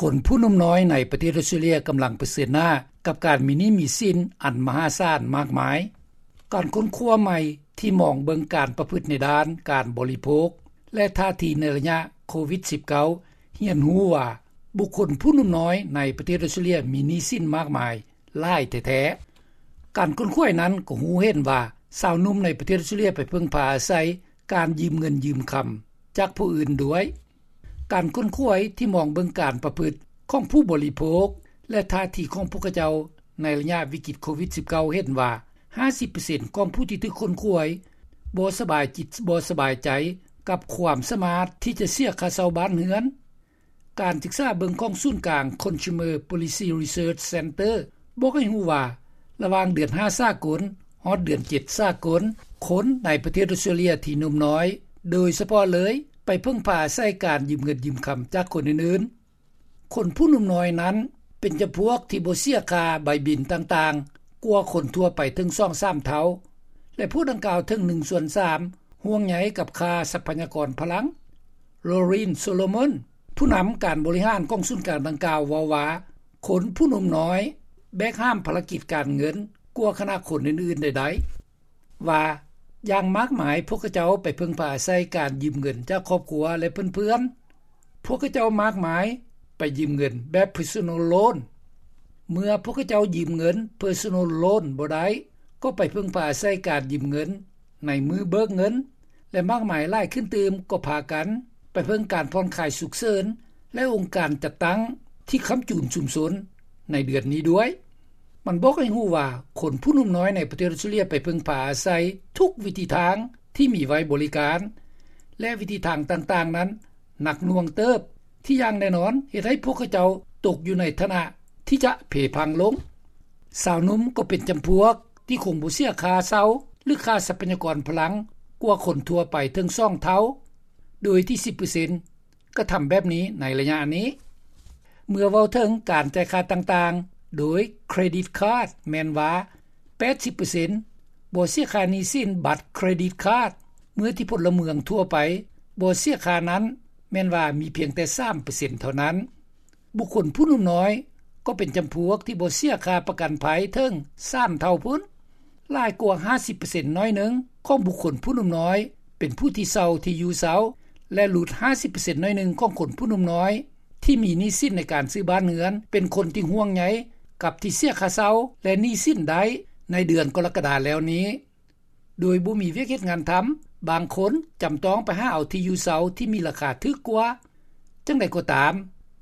ຄົນຜູ້ໜຸ່ມນ້ອຍໃນປະເທດອອສເຕຣເລັຽກຳລັງປະເຊີນໜ້າກັບການມີໜີ້ມີສິນອັນມະຫາສານມາກມາຍ. ການຄົ້ນຄວ້າໃໝ່ທີ່ມອງເບິ່ງການປະພຶດໃນດ້ານການບໍລິໂພກ ແລະ ທ່າທີໃນໄລຍະໂຄວິດ-19 ຮຽນຮູ້ວ່າ ບຸກຄົນຜູ້ໜຸ່ມນ້ອຍໃນປະເທດອອສເຕຣເລັຽມີໜີ້ສິນມາກມາຍຫຼາຍແທ້ໆ. ການຄົ້ນຄວ້ານັ້ນກໍຮູ້ເຫັນວ່າ ຊາວໜຸ່ມໃນປະເທດອອສເຕຣເລັຽໄປເພິ່ງພາອາໄສການຢືມເງິນຢືມຄຳຈາກຜູ້ອື່ນດ້ວຍ. ການຄົ້ນຄວ້າທີ່ມອງເບິ່ງການປະພຶດຂອງຜູ້ບໍລິໂພກ ແລະ ທ່າທີຂອງພວກເຂົາເຈົ້າໃນໄລຍະວິກິດໂຄວິດ-19 ເຫັນວ່າ ຫ້າສິບເປີເຊັນຂອງຜູ້ທີ່ຖືກຄົ້ນຄວ້າບໍ່ສະບາຍຈິດບໍ່ສະບາຍໃຈກັບຄວາມສາມາດທີ່ຈະເສຍຄ່າເຊົ່າບ້ານເຮືອນ. ການສຶກສາເບິ່ງຂອງສູນກາງ Consumer Policy Research Center ບອກໃຫ້ຮູ້ວ່າ ລະຫວ່າງເດືອນຫ້າສາກົນ ຮອດເດືອນເຈັດສາກົນ ຄົນໃນປະເທດອອສເຕຣເລັຽທີ່ໜຸ່ມນ້ອຍ ໂດຍສະເພາະເລີຍ ໄປເພິ່ງພາອາໄສການຢືມເງິນຢືມຄຳຈາກຄົນອື່ນໆ. ຄົນຜູ້ໜຸ່ມນ້ອຍນັ້ນ ເປັນຈຳພວກທີ່ບໍ່ເສຍຄ່າໃບບິນຕ່າງໆ ກວ່າຄົນທົ່ວໄປເຖິງສອງສາມເທົ່າ ແລະ ພວກດັ່ງກ່າວເຖິງໜຶ່ງສ່ວນສາມ ຫ່ວງໃຍກັບຄ່າຊັບພະຍາກອນພະລັງ. Laureen Solomon ຜູ້ນຳການບໍລິຫານຂອງສູນກາງດັ່ງກ່າວເວົ້າວ່າ ຄົນຜູ້ໜຸ່ມນ້ອຍແບກຫາມພາລະກິດການເງິນກວ່າຄະນະຄົນອື່ນໆໃດໆ ວ່າ ຢ່າງມາກມາຍພວກເຂົາເຈົ້າໄປເພິ່ງພາອາໄສການຢືມເງິນຈາກຄອບຄົວ ແລະ ເພື່ອນໆ. ພວກເຂົາເຈົ້າມາກມາຍໄປຢືມເງິນແບບ Personal Loan. ເມື່ອພວກເຂົາເຈົ້າຢືມເງິນ Personal Loan ບໍ່ໄດ້ ກໍໄປເພິ່ງພາອາໄສການຢືມເງິນໃນມື້ເບີກເງິນ ແລະ ມາກມາຍຫຼາຍຂຶ້ນຕື່ມກໍພາກັນໄປເພິ່ງການຜ່ອນຄາຍສຸກເສີນ ແລະ ອົງການຈັດຕັ້ງທີ່ຄ້ຳຈູນຊຸມຊົນໃນເດືອນນີ້ດ້ວຍ. ມັນບອກໃຫ້ຮູ້ວ່າ ຄົນຜູ້ໜຸ່ມນ້ອຍໃນປະເທດອອສເຕຣເລັຽໄປເພິ່ງພາອາໄສທຸກວິທີທາງທີ່ມີໄວ້ບໍລິການ ແລະ ວິທີທາງຕ່າງໆນັ້ນໜັກໜ່ວງເຕີບ ທີ່ຢ່າງແນ່ນອນເຮັດໃຫ້ພວກເຂົາເຈົ້າຕົກຢູ່ໃນຖານະທີ່ຈະເພພັງລົງ. ຊາວໜຸ່ມກໍເປັນຈຳພວກທີ່ຄົງບໍ່ເສຍຄ່າເຊົ່າ ຫຼື ຄ່າຊັບພະຍາກອນພະລັງກວ່າຄົນທົ່ວໄປເຖິງສອງເທົ່າ ໂດຍທີ່ສິບເປີເຊັນ ກະທຳແບບນີ້ໃນໄລຍະນີ້. ເມື່ອເວົ້າເຖິງການຈ່າຍຄ່າຕ່າງໆໂດຍ Credit Card ແມ່ນວ່າ ແປດສິບເປີເຊັນ ບໍ່ເສຍຄ່າໜີ້ສິນບັດ Credit Card ເມື່ອທີ່ພົນລະເມືອງທົ່ວໄປບໍ່ເສຍຄ່ານັ້ນ ແມ່ນວ່າມີພຽງແຕ່ສາມເປີເຊັນເທົ່ານັ້ນ. ບຸກຄົນຜູ້ໜຸ່ມນ້ອຍກໍເປັນຈຳພວກທີ່ບໍ່ເສຍຄ່າປະກັນໄພເຖິງສາມເທົ່າພຸ້ນ. ຫຼາຍກວ່າຫ້າສິບເປີເຊັນໜ້ອຍໜຶ່ງຂອງບຸກຄົນຜູ້ໜຸ່ມນ້ອຍເປັນຜູ້ທີ່ເຊົ່າທີ່ຢູ່ເຊົ່າ ແລະ ຫຼຸດຫ້າສິບເປີເຊັນໜ້ອຍໜຶ່ງຂອງຄົນຜູ້ໜຸ່ມນ້ອຍທີ່ມີໜີ້ສິນໃນການຊື້ບ້ານເຮືອນ ເປັນຄົນທີ່ຫ່ວງໃຍກັບທີ່ເສຍຄ່າເຊົ່າ ແລະ ໜີ້ສິນໄດ້ໃນເດືອນກໍລະກະດາແລ້ວນີ້. ໂດຍບໍ່ມີວຽກເຮັດງານທຳ, ບາງຄົນຈຳຕ້ອງໄປຫາເອົາທີ່ຢູ່ເຊົ່າທີ່ມີລາຄາຖືກກວ່າ. ຈັ່ງໃດກໍຕາມ,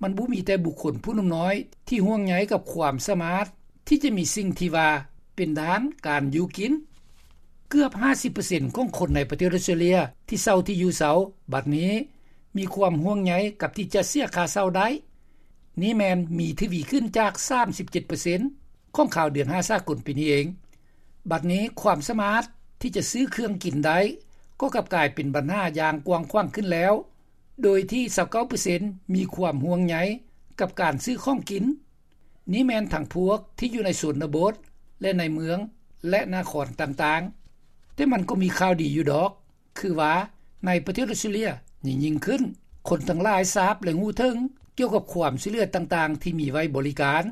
ມັນບໍ່ມີແຕ່ບຸກຄົນຜູ້ໜຸ່ມນ້ອຍທີ່ຫ່ວງໃຍກັບຄວາມສາມາດທີ່ຈະມີສິ່ງທີ່ວ່າເປັນດ້ານການຢູ່ກິນ. ເກືອບຫ້າສິບເປີເຊັນຂອງຄົນໃນປະເທດອອສເຕຣເລຍທີ່ເຊົ່າທີ່ຢູ່ເຊົ່າບັດນີ້ ມີຄວາມຫ່ວງໃຍກັບທີ່ຈະເສຍຄ່າເຊົ່າໄດ້. ນີ້ແມ່ນມີທະວີຂຶ້ນຈາກສາມສິບເຈັດເປີເຊັນຂອງຄາວເດືອນຫ້າສາກົນປີນີ້ເອງ. ບັດນີ້ຄວາມສາມາດທີ່ຈະຊື້ເຄື່ອງກິນໄດ້ ກໍກັບກາຍເປັນບັນຫາຢ່າງກວ້າງຂວາງຂຶ້ນແລ້ວ, ໂດຍທີ່ຊາວເກົ້າເປີເຊັນມີຄວາມຫ່ວງໃຍກັບການຊື້ຂອງກິນ. ນີ້ແມ່ນທັງພວກທີ່ຢູ່ໃນຊົນນະບົດ ແລະ ໃນເມືອງ ແລະ ນະຄອນຕ່າງໆ. ແຕ່ມັນກໍມີຂ່າວດີຢູ່ດອກ, ຄືວ່າໃນປະເທດອອສເຕຣເລຍຍິ່ງໆຂຶ້ນ, ຄົນທັງຫຼາຍຊາບ ແລະ ຮູ້ເຖິງກ່ຽວກັບຄວາມຊ່ວຍເຫຼືອຕ່າງໆທີ່ມີໄວ້ບໍລິການ.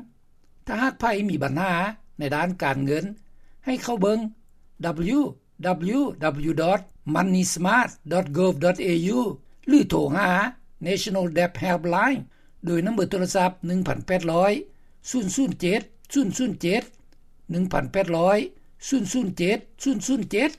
ຖ້າຫາກໃຜມີບັນຫາໃນດ້ານການເງິນ, ໃຫ້ເຂົ້າເບິ່ງ www.moneysmart.gov.au ຫຼື ໂທຫາ National Debt Helpline ໂດຍນຳເບີໂທລະສັບ ໜຶ່ງພັນແປດຮ້ອຍ ສູນສູນເຈັດ ສູນສູນເຈັດ ໜຶ່ງພັນແປດຮ້ອຍ ສູນສູນເຈັດ ສູນສູນເຈັດ.